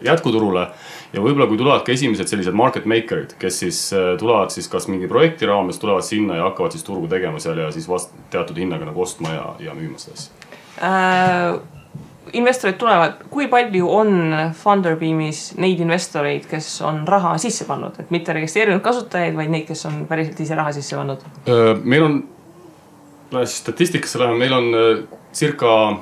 jätkuturule. Ja võib-olla kui tulevad ka esimesed sellised market makerid, kes siis tulevad siis kas mingi projekti raames, tulevad sinna ja hakkavad siis turgu tegema seal ja siis teatud hinnaga nagu ostma ja müüma seda asja. Investorid tulevad, kui palju on Funderbeamis neid investoreid, kes on raha sisse pannud, et mitte registreerinud kasutajaid, vaid neid, kes on päriselt ise raha sisse pannud? Meil on, statistikasse läheme, meil on circa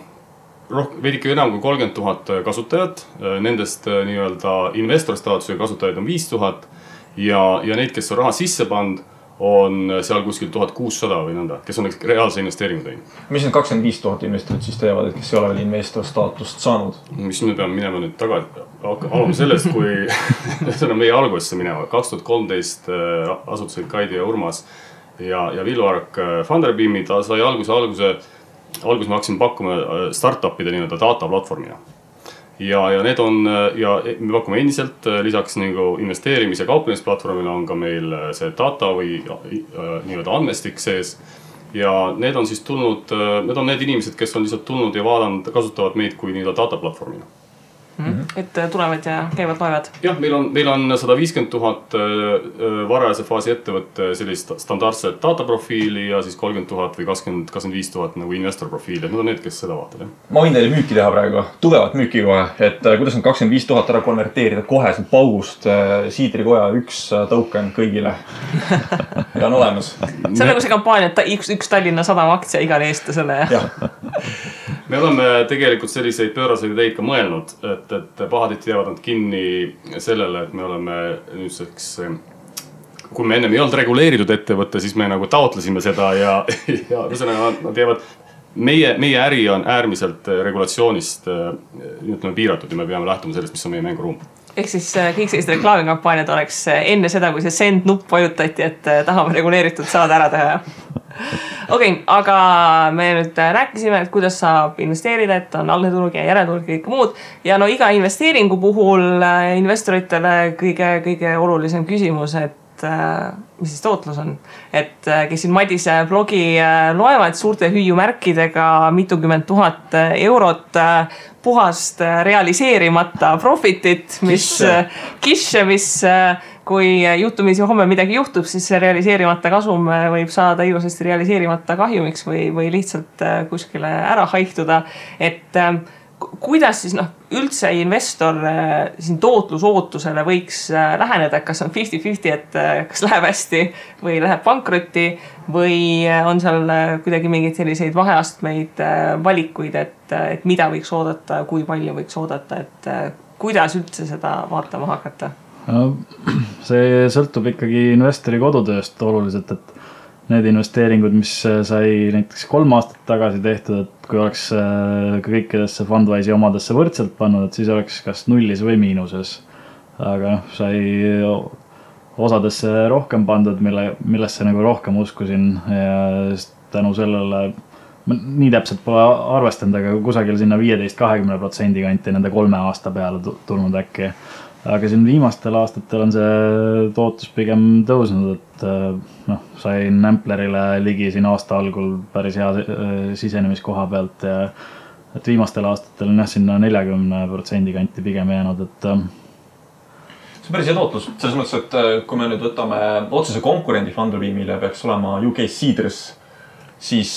veidike enam kui 30 000 kasutajat, nendest nii-öelda investorstaatusega kasutajaid on 5000 ja neid, kes on raha sisse pannud, on seal kuskil 1600 või nõnda, kes on reaalse investeeringu teinud. Mis need 25 000 investorid siis teevad, et kes ei ole veel investor staatust saanud? Mis me peame minema nüüd tagasi, alame sellest, kui see on meie algusesse minema. 2013 asutasid Kaidi ja Urmas ja Villu Ark Funderbeami, ta sai alguses me hakkasime pakkuma startupide nii-öelda data platvormina. Ja need on, ja me pakume endiselt lisaks nagu investeerimise kauplemisplatvormile on ka meil see data või nii-öelda andmestik sees. Ja need on siis tulnud, need on need inimesed, kes on lihtsalt tulnud ja vaadanud, kasutavad meid kui nii-öelda data platvormina. Et tulevad ja käivad loevad. Jah, meil on 150 000 varajase faasi ettevõtte sellist standardset dataprofiili ja siis 30 000 või 25 000 nagu investorprofiili. Need on need, kes seda vaatavad. Ma võin teile müüki teha praegu, tugevat müüki kohe, et kuidas on 25 000 ära konverteerida kohe sealt paugust Siidrikoja üks token kõigile ja on olemas. See on nagu see kampaania, et üks Tallinna Sadama aktsia igale eestlasele. Me oleme tegelikult selliseid pööraseid ideid ka mõelnud, et pahatihti jäävad nad kinni sellele, et me oleme nüüdseks, kui me ennem ei olnud reguleeritud ettevõtte, siis me nagu taotlesime seda ja nad jäävad, meie äri on äärmiselt regulatsioonist piiratud ja me peame lähtuma sellest, mis on meie mänguruum. Ehk siis kõik sellised reklaamikampaaniad oleks enne seda, kui see send nupp vajutati, et tahame reguleeritud saada ära teha. Okei, aga me nüüd rääkisime, et kuidas saab investeerida, et on algne turg ja järelturg ja kõik muud. Ja no iga investeeringu puhul investoritele kõige olulisem küsimus, et mis siis tootlus on. Et kes siin Madise blogi loevad suurte hüüumärkidega mitukümmend tuhat eurot puhast realiseerimata profitit, mis kui juhtumisi homme midagi juhtub, siis see realiseerimata kasum võib saada ilusasti realiseerimata kahjumiks või lihtsalt kuskile ära haihtuda. Et kuidas siis üldse investor siin tootlusootusele võiks läheneda, kas on 50-50, et kas läheb hästi või läheb pankrotti või on seal kuidagi mingeid selliseid vaheastmeid valikuid, et mida võiks oodata, kui palju võiks oodata, et kuidas üldse seda vaatama hakata? See sõltub ikkagi investori kodutööst oluliselt, et need investeeringud, mis sai näiteks 3 aastat tagasi tehtud, et kui oleks kõikidesse Fundwise'i omadesse võrdselt pannud, et siis oleks kas nullis või miinuses. Aga sai osadesse rohkem pandud, millesse nagu rohkem uskusin ja tänu sellele nii täpselt pole arvestanud, aga kusagil sinna 15-20% kanti nende 3 aasta peale tulnud äkki. Aga siin viimastel aastatel on see tootlus pigem tõusnud, et sain Amplerile ligi siin aasta algul päris hea sisenemiskoha pealt ja et viimastel aastatel on sinna 40% kanti pigem jäänud, et see on päris hea tootlus. Selles mõttes, et kui me nüüd võtame otsese konkurendi Funderbeamile peaks olema UK Seeders, siis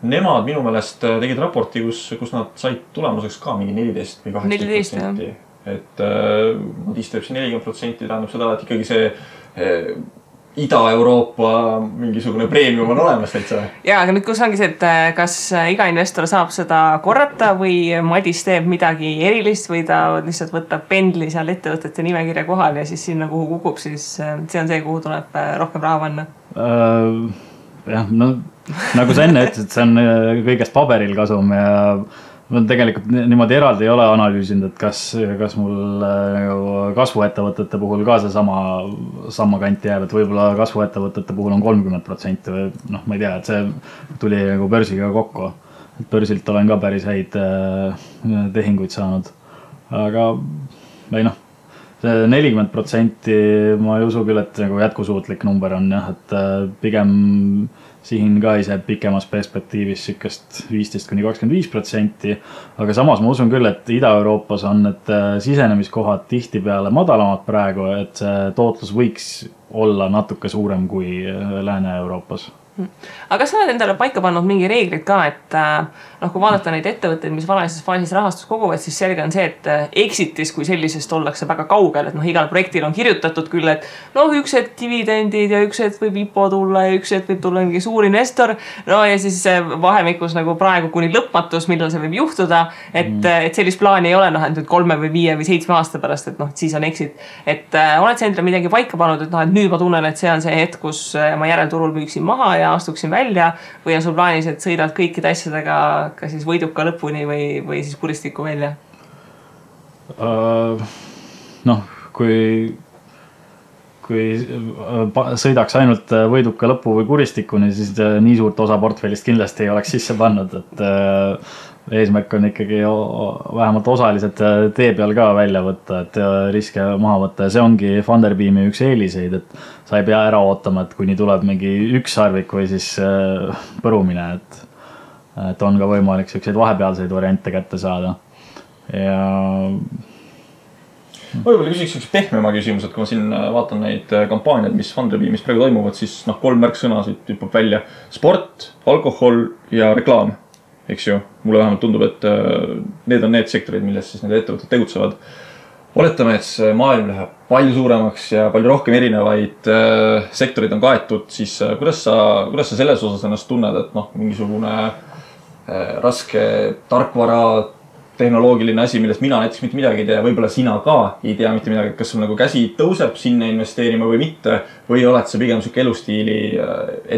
nemad minu meelest tegid raporti, kus nad said tulemuseks ka mingi 14 või 18%. Et Madis teeb see 40%, tähendab seda, et ikkagi see Ida-Euroopa mingisugune premium on olemas täitsa. Ja, aga nüüd kus ongi see, et kas iga investor saab seda korrata või Madis teeb midagi erilist või ta lihtsalt võtab pendli seal ettevõtete nimekirja kohal ja siis sinna, kuhu kukub, siis see on see, kuhu tuleb rohkem raha panna? Jah, no nagu sa enne ütlesid, see on kõigest paberil kasum ja ma tegelikult niimoodi eraldi ei ole analüüsinud, et kas mul kasvuettevõtete puhul ka see sama kanti jääb, et võib-olla kasvuettevõtete puhul on 30% või noh, ma ei tea, et see tuli nagu börsiga kokku. Et börsilt olen ka päris häid tehinguid saanud. Aga ei noh, see 40% ma ei usu küll, et nagu jätkusuutlik number on jah, et pigem siin ka ise pikemas perspektiivis sükest 15–25%, aga samas ma usun küll, et Ida-Euroopas on need sisenemiskohad tihti peale madalamad praegu, et see tootlus võiks olla natuke suurem kui Lääne-Euroopas. Aga kas sa oled endale paika pannud mingi reeglid ka, et kui vaadata neid ettevõtteid, mis varaises faasis rahastus koguvad, siis selge on see, et exitis kui sellisest ollakse väga kaugel, et igal projektil on kirjutatud küll, et üks hetk dividendid ja üks hetk võib IPO tulla ja üks hetk võib tulla mingi suur investor, ja siis vahemikus nagu praegu kuni lõpmatus, millal see võib juhtuda, et sellist plaani ei ole, et 3 või 5 või 7 aasta pärast, et siis on exit. Et oled sa endale midagi paika pannud, et nüüd ma tunnen, et see on see hetk, kus ma järelturul müüksin maha ja astuksin välja või on sul plaanis, et sõidad kõikide asjadega ka siis võiduka lõpuni või siis kuristiku välja? Kui sõidaks ainult võiduka lõpu või kuristikuni, siis nii suurt osa portfellist kindlasti ei oleks sisse pannud, et eesmärk on ikkagi vähemalt osalised tee peal ka välja võtta, et riske maha võtta ja see ongi Funderbeami üks eeliseid, et sa ei pea ära ootama, et kuni tuleb mingi üks sarvik või siis põrumine, et on ka võimalik selliseid vahepealseid variante kätte saada. Ja ma võib-olla küsiks üks pehmema küsimus, et kui ma siin vaatan neid kampaaniad, mis Funderbeamis praegu toimuvad, siis 3 märksõna siit hüppab välja. Sport, alkohol ja reklaam. Eks ju, mulle vähemalt tundub, et need on need sektorid, milles siis need ettevõtted tegutsevad. Oletame, et see maailm läheb palju suuremaks ja palju rohkem erinevaid sektorid on kaetud, siis kuidas sa selles osas ennast tunned, et mingisugune raske tarkvara tehnoloogiline asi, millest mina näiteks mitte midagi ei tea, võib-olla sina ka ei tea mitte midagi, kas sul nagu käsi tõuseb sinna investeerima või mitte, või oled sa pigem selline elustiili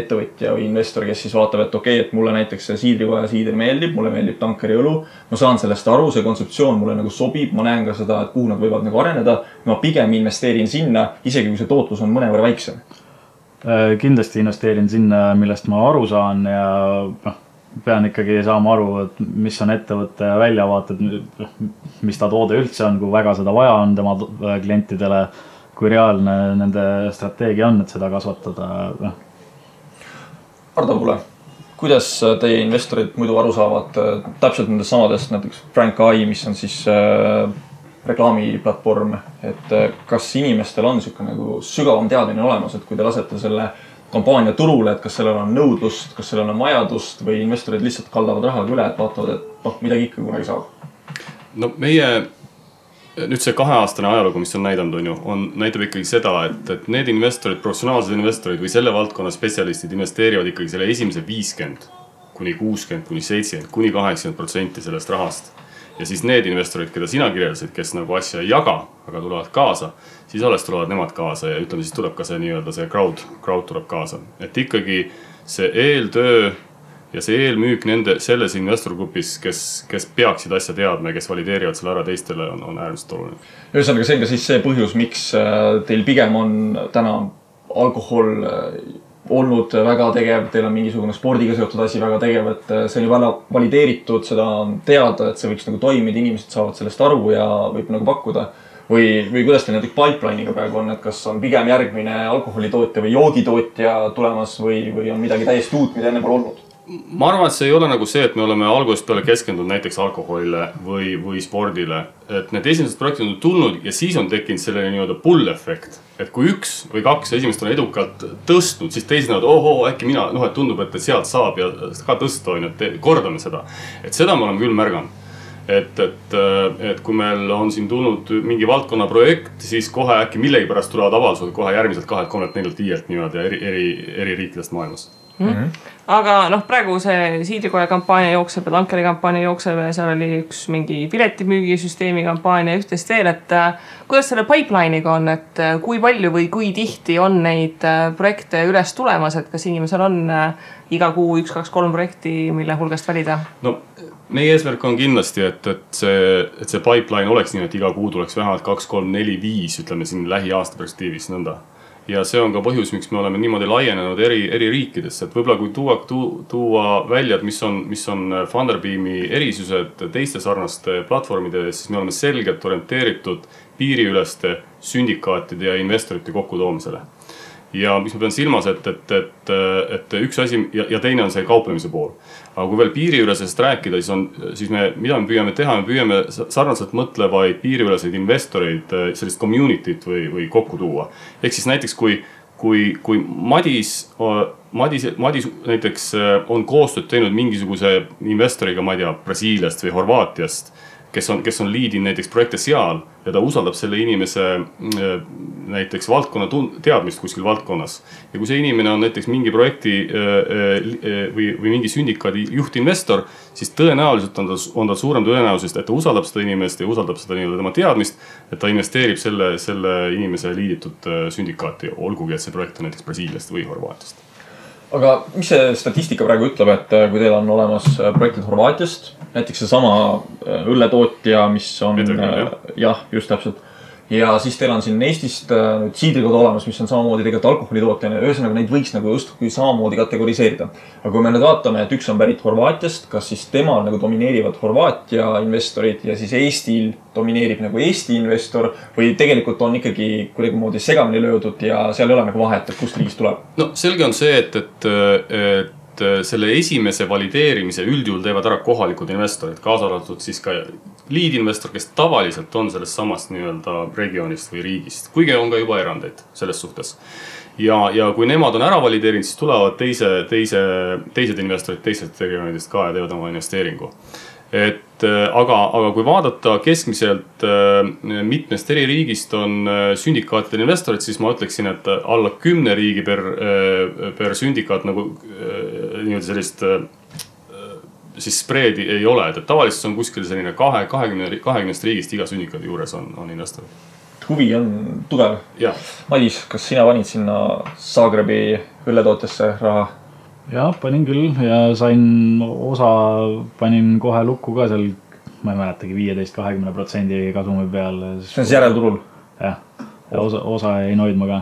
ettevõtja või investor, kes siis vaatab, et okei, et mulle näiteks see siidrikoja siider meeldib, mulle meeldib tankeri õlu, ma saan sellest aru, see kontseptsioon mulle nagu sobib, ma näen ka seda, et kuhu nad võivad nagu areneda, ma pigem investeerin sinna, isegi kui see tootlus on mõnevõrra väiksem. Kindlasti investeerin sinna, millest ma aru saan ja pean ikkagi saama aru, et mis on ettevõtte väljavaated, mis ta toode üldse on, kui väga seda vaja on tema klientidele, kui reaalne nende strateegia on, et seda kasvatada. Ardo Pule, kuidas teie investorid muidu aru saavad täpselt nendest samadest, näiteks Frank AI, mis on siis reklaamiplatvorm, et kas inimestel on selline nagu sügavam teadmine olemas, et kui te lasete selle kampaania turule, et kas sellel on nõudlust, kas sellel on vajadust või investorid lihtsalt kaldavad rahaga üle, et vaatavad, et midagi ikka kunagi saab? No meie nüüd see 2-aastane ajalugu, mis on näidanud, näitab ikkagi seda, et need investorid, professionaalsed investorid või selle valdkonna spetsialistid investeerivad ikkagi selle esimese 50 kuni 60 kuni 70 kuni 80% sellest rahast. Ja siis need investorid, keda sina kirjeldasid, kes nagu asja ei jaga, aga tulevad kaasa, siis alles tulevad nemad kaasa ja ütleme, siis tuleb ka see nii-öelda see crowd tuleb kaasa. Et ikkagi see eeltöö ja see eelmüük selles investorgrupis, kes peaksid asja teadma ja kes valideerivad selle ära teistele, on äärmiselt oluline. Ühesõnaga, see on ka siis see põhjus, miks teil pigem on täna alkohol olnud väga tegev, teil on mingisugune spordiga seotud asi väga tegev, et see on juba valideeritud, seda on teada, et see võiks nagu toimida, inimesed saavad sellest aru ja võib nagu pakkuda. Või kuidas teil näiteks pipeline'iga praegu on, et kas on pigem järgmine alkoholitootja või joogitootja tulemas või on midagi täiesti uut, mida enne pole olnud? Ma arvan, et see ei ole nagu see, et me oleme algusest peale keskendunud näiteks alkoholile või spordile. Et need esimesed projektid on tulnud ja siis on tekkinud selline nii-öelda pull-effekt. Et kui 1 või 2 esimest on edukalt tõstnud, siis teised näevad, äkki mina, et tundub, et sealt saab ja ka tõsta, et kordame seda. Et seda me oleme küll märganud. et kui meil on siin tulnud mingi valdkonna projekt, siis kohe äkki millegipärast tulevad avaldused kohe järgmiselt 2, 3, 4, 5 niimoodi eri riikidest maailmas. Aga praegu see Siidrikoja kampaania jookseb ja Tankeri kampaania jookseb ja seal oli üks mingi piletimüügisüsteemi kampaania ja üht-teist veel, et kuidas selle pipeline'iga on, et kui palju või kui tihti on neid projekte üles tulemas, et kas inimesel on iga kuu 1, 2, 3 projekti, mille hulgast valida? No meie eesmärk on kindlasti, et see pipeline oleks nii, et iga kuu tuleks vähemalt 2, 3, 4, 5, ütleme siin lähiaasta perspektiivis nõnda. Ja see on ka põhjus, miks me oleme niimoodi laienenud eri riikidesse, et võib-olla kui tuua välja, et mis on Funderbeami erisused teiste sarnaste platvormide, siis me oleme selgelt orienteeritud piiriüleste syndikaatide ja investorite kokkutoomisele. Ja mis ma pean silmas, et üks asi ja teine on see kauplemise pool. Aga kui veel piiriülesest rääkida, siis mida me püüame teha, me püüame sarnaselt mõtlevaid piiriüleseid investoreid, sellist community't või kokku tuua. Ehk siis näiteks kui Madis näiteks on koostööd teinud mingisuguse investoriga, ma ei tea, Brasiiliast või Horvaatiast, kes on liidin näiteks projekte seal ja ta usaldab selle inimese näiteks valdkonna teadmist kuskil valdkonnas. Ja kui see inimene on näiteks mingi projekti või mingi syndikaadi juhtinvestor, siis tõenäoliselt on ta suurem tõenäosus, et ta usaldab seda inimest ja usaldab seda tema teadmist, et ta investeerib selle inimese liiditud syndikaati, olgugi et see projekt on näiteks Brasiiliast või Horvaatiast. Aga mis see statistika praegu ütleb, et kui teil on olemas projektid Horvaatiast, näiteks see sama õlletootja, mis on, jah, just täpselt. Ja siis teil on siin Eestist nüüd Siidrikoda olemas, mis on samamoodi tegelikult alkoholitootjana. Ühesõnaga neid võiks nagu justkui samamoodi kategoriseerida. Aga kui me nüüd vaatame, et üks on pärit Horvaatiast, kas siis temal nagu domineerivad Horvaatia investorid ja siis Eestil domineerib nagu Eesti investor või tegelikult on ikkagi kuidagimoodi segamini löödud ja seal ei ole nagu vahet, et kust riigist tuleb? No selge on see, et selle esimese valideerimise üldjuhul teevad ära kohalikud investorid, kaasa arvatud siis ka liidinvestor, kes tavaliselt on sellest samast nii-öelda regioonist või riigist, kuigi on ka juba erandeid selles suhtes. Ja kui nemad on ära valideerinud, siis tulevad teised investorid teised regioonidest ka ja teevad oma investeeringu. Aga kui vaadata keskmiselt mitmest eri riigist on syndikaatide investorid, siis ma ütleksin, et alla 10 riigi per syndikaat nagu sellist siis spreedi ei ole, et tavaliselt on kuskil selline 20 riigist iga syndikaadi juures on investorid. Huvi on tugev. Madis, kas sina panid sinna Zagrebi õlletootjasse raha? Jah, panin küll ja panin kohe lukku ka seal, ma ei mäletagi, 15-20% kasumi peal. See on järelturul? Jah, ja osa ei noidma ka.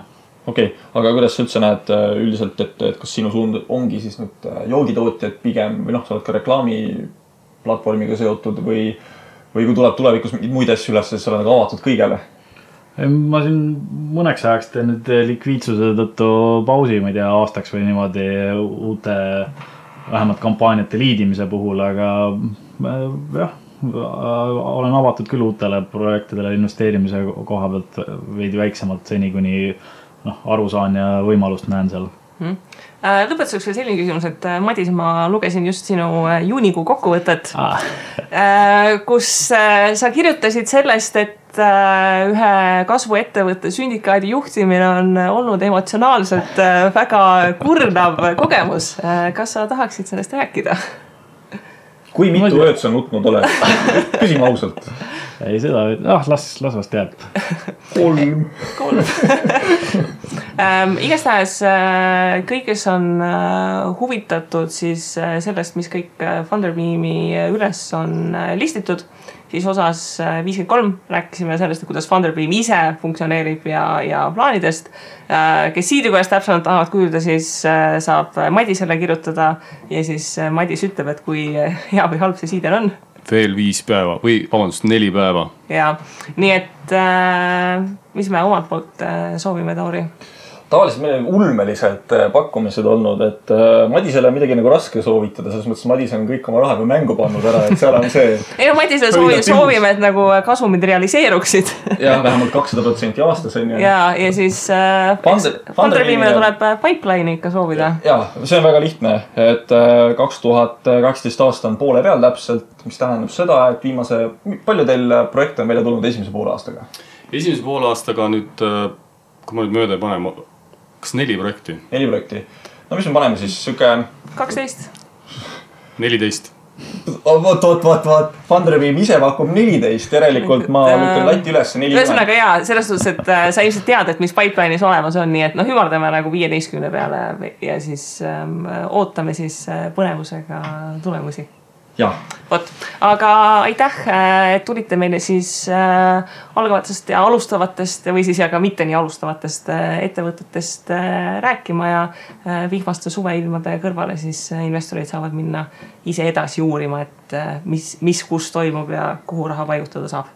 Okei, aga kuidas sa üldse näed üldiselt, et kas sinu suund ongi siis nüüd joogitootjad pigem või sa oled ka reklaamiplatvormiga seotud või kui tuleb tulevikus mingeid muid asju üles, siis sa oled avatud kõigele? Ma siin mõneks ajaks teen nüüd likviidsuse tõttu pausi, ma ei tea, aastaks või niimoodi uute vähemalt kampaaniate liidimise puhul, aga jah, olen avatud küll uutele projektidele investeerimise koha pealt veidi väiksemalt seni, kuni aru saan ja võimalust näen seal. Lõpetuseks veel selline küsimus, et Madis, ma lugesin just sinu juunikuu kokkuvõtet, kus sa kirjutasid sellest, et ühe kasvuettevõtte syndikaadi juhtimine on olnud emotsionaalselt väga kurnav kogemus. Kas sa tahaksid sellest rääkida? Kui mitu ööd sa nutnud oled? Küsime ausalt. Ei seda, las vast jääb. 3. Igastahes kõik, kes on huvitatud siis sellest, mis kõik Funderbeami üles on listitud, siis osas 53 rääkisime sellest, kuidas Funderbeam ise funktsioneerib ja plaanidest. Kes Siidrikojast täpsemalt tahavad kuulda, siis saab Madisele kirjutada ja siis Madis ütleb, et kui hea või halb see Siider on. Veel 5 päeva või 4 päeva. Ja, nii et mis me omalt poolt soovime, Tauri? tavaliselt meil on ulmelised pakkumised olnud, et Madisele midagi nagu raske soovitada, selles mõttes Madis on kõik oma raha juba mängu pannud ära, et seal on see... Ei no Madisele soovime, et nagu kasumid realiseeruksid. Ja, vähemalt 200% aastas on ju. Ja siis Funderbeamile tuleb pipeline'i ikka soovida. Ja, see on väga lihtne, et 2018 aasta on poole peal täpselt, mis tähendab seda, et palju teil projekte on välja tulnud esimese poole aastaga? Esimese poole aastaga nüüd, kui ma nüüd mööda ei pane, kas 4 projekti? 4 projekti. No mis me paneme siis? Süke... 12. 14. Vaat. Funderbeam ise pakub 14. Järelikult ma lükkan latti üles 40. Ühesõnaga jaa, selles suhtes, et sa ilmselt tead, et mis pipeline'is olemas on, nii et hümardame nagu 15 peale ja siis ootame siis põnevusega tulemusi. Jah. Vot, aga aitäh, et tulite meile siis algavatest ja alustavatest või siis ja ka mitte nii alustavatest ettevõtetest rääkima ja vihmaste suveilmade kõrvale siis investorid saavad minna ise edasi uurima, et mis kus toimub ja kuhu raha paigutada saab.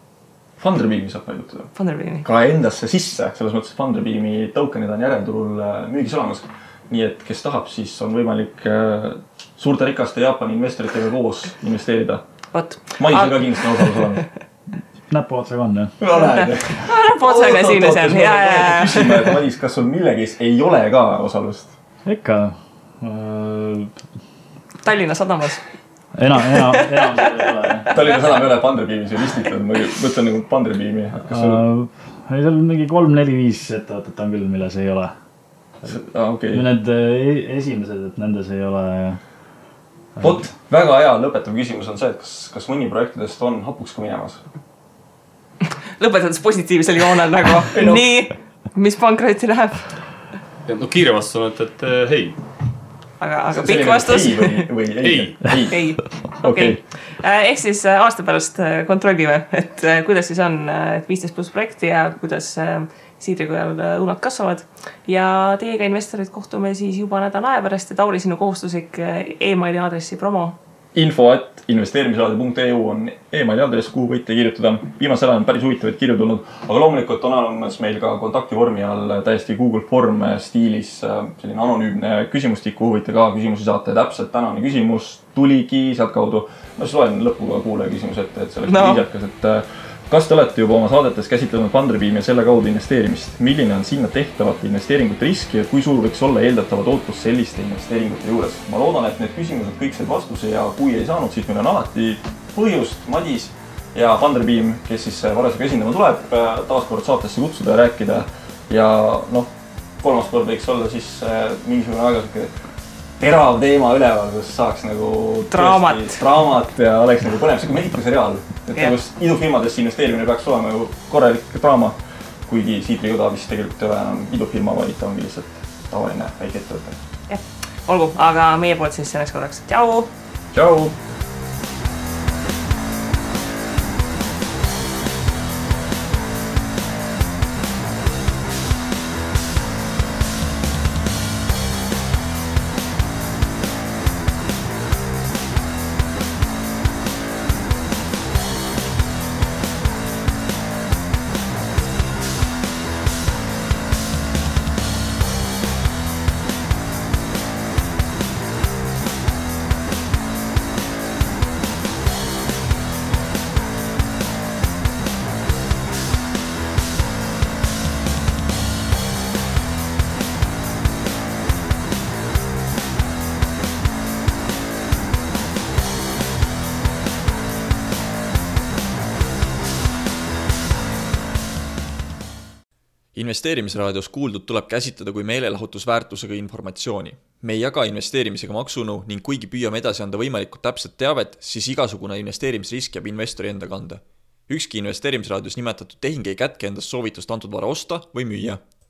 Funderbeami saab paigutada. Funderbeami. Ka endasse sisse, selles mõttes Funderbeami tokenid on järelturul müügis olemas. Nii et kes tahab, siis on võimalik suurte rikaste Jaapani investoritega koos investeerida. Madisel ka kindlasti on osalus olemas. Näpuotsaga on, jah? No näed. Näpuotsaga siin ja seal. Küsime, et Madis, kas sul millegis ei ole ka osalust? Ikka. Tallinna sadamas. Enam seda ei ole. Tallinna sadam ei ole Funderbeamis ju listitud. Ma mõtlen nagu Funderbeami. Seal mingi 3-4-5 ettevõtet on küll, milles ei ole. Okay. Need esimesed, et nendes ei ole. Vot, väga hea lõpetav küsimus on see, et kas mõni projektidest on hapuks ka minemas? Lõpetades positiivsel joonel nagu nii, mis pankrotti läheb? No kiire vastus on, et hei. Aga pikk vastus? Ei. Okei. Ehk siis aasta pärast kontrollime, et kuidas siis on 15+ projekti ja kuidas Siidrikojal õunad kasvavad ja teiega investorid kohtume siis juba nädala aja pärast ja Tauri sinu kohustuslik e-maili aadressi promo. info@investeerimisradio.eu on e-maili aadress, kuhu võite kirjutada. Viimasel ajal on päris huvitavaid kirju tulnud, aga loomulikult on olemas meil ka kontaktivormi all täiesti Google Form stiilis selline anonüümne küsimustik, kuhu võite ka küsimusi saata ja täpselt tänane küsimus tuligi sealt kaudu. Ma siis loen lõpuga kuulaja küsimus ette, et selleks viisakas, et kas te olete juba oma saadetes käsitlenud Funderbeami ja selle kaudu investeerimist? Milline on sinna tehtavate investeeringute riski ja kui suur võiks olla eeldatava tootlus selliste investeeringute juures? Ma loodan, et need küsimused kõik said vastuse ja kui ei saanud, siis meil on alati põhjust Madis ja Funderbeam, kes siis varasega esindama tuleb, taaskord saatesse kutsuda ja rääkida. Ja kolmas kord võiks olla siis mingisugune väga terav teema üleval, kus saaks nagu draamat ja oleks nagu põnev, see kui Mehhiko-seriaal. Et nagu idufirmadesse investeerimine peaks olema ju korralik draama, kuigi Siidrikoda vist tegelikult ei ole enam idufirma, vaid ta ongi lihtsalt tavaline väike ettevõte. Olgu, aga meie poolt siis selleks korraks. Tšau! Tšau! Investeerimisraadios kuuldud tuleb käsitleda kui meelelahutusväärtusega informatsiooni. Me ei jaga investeerimisega maksunõu ning kuigi püüame edasi anda võimalikult täpset teavet, siis igasugune investeerimisrisk jääb investori enda kanda. Ükski investeerimisraadios nimetatud tehing ei kätke endast soovitust antud vara osta või müüa.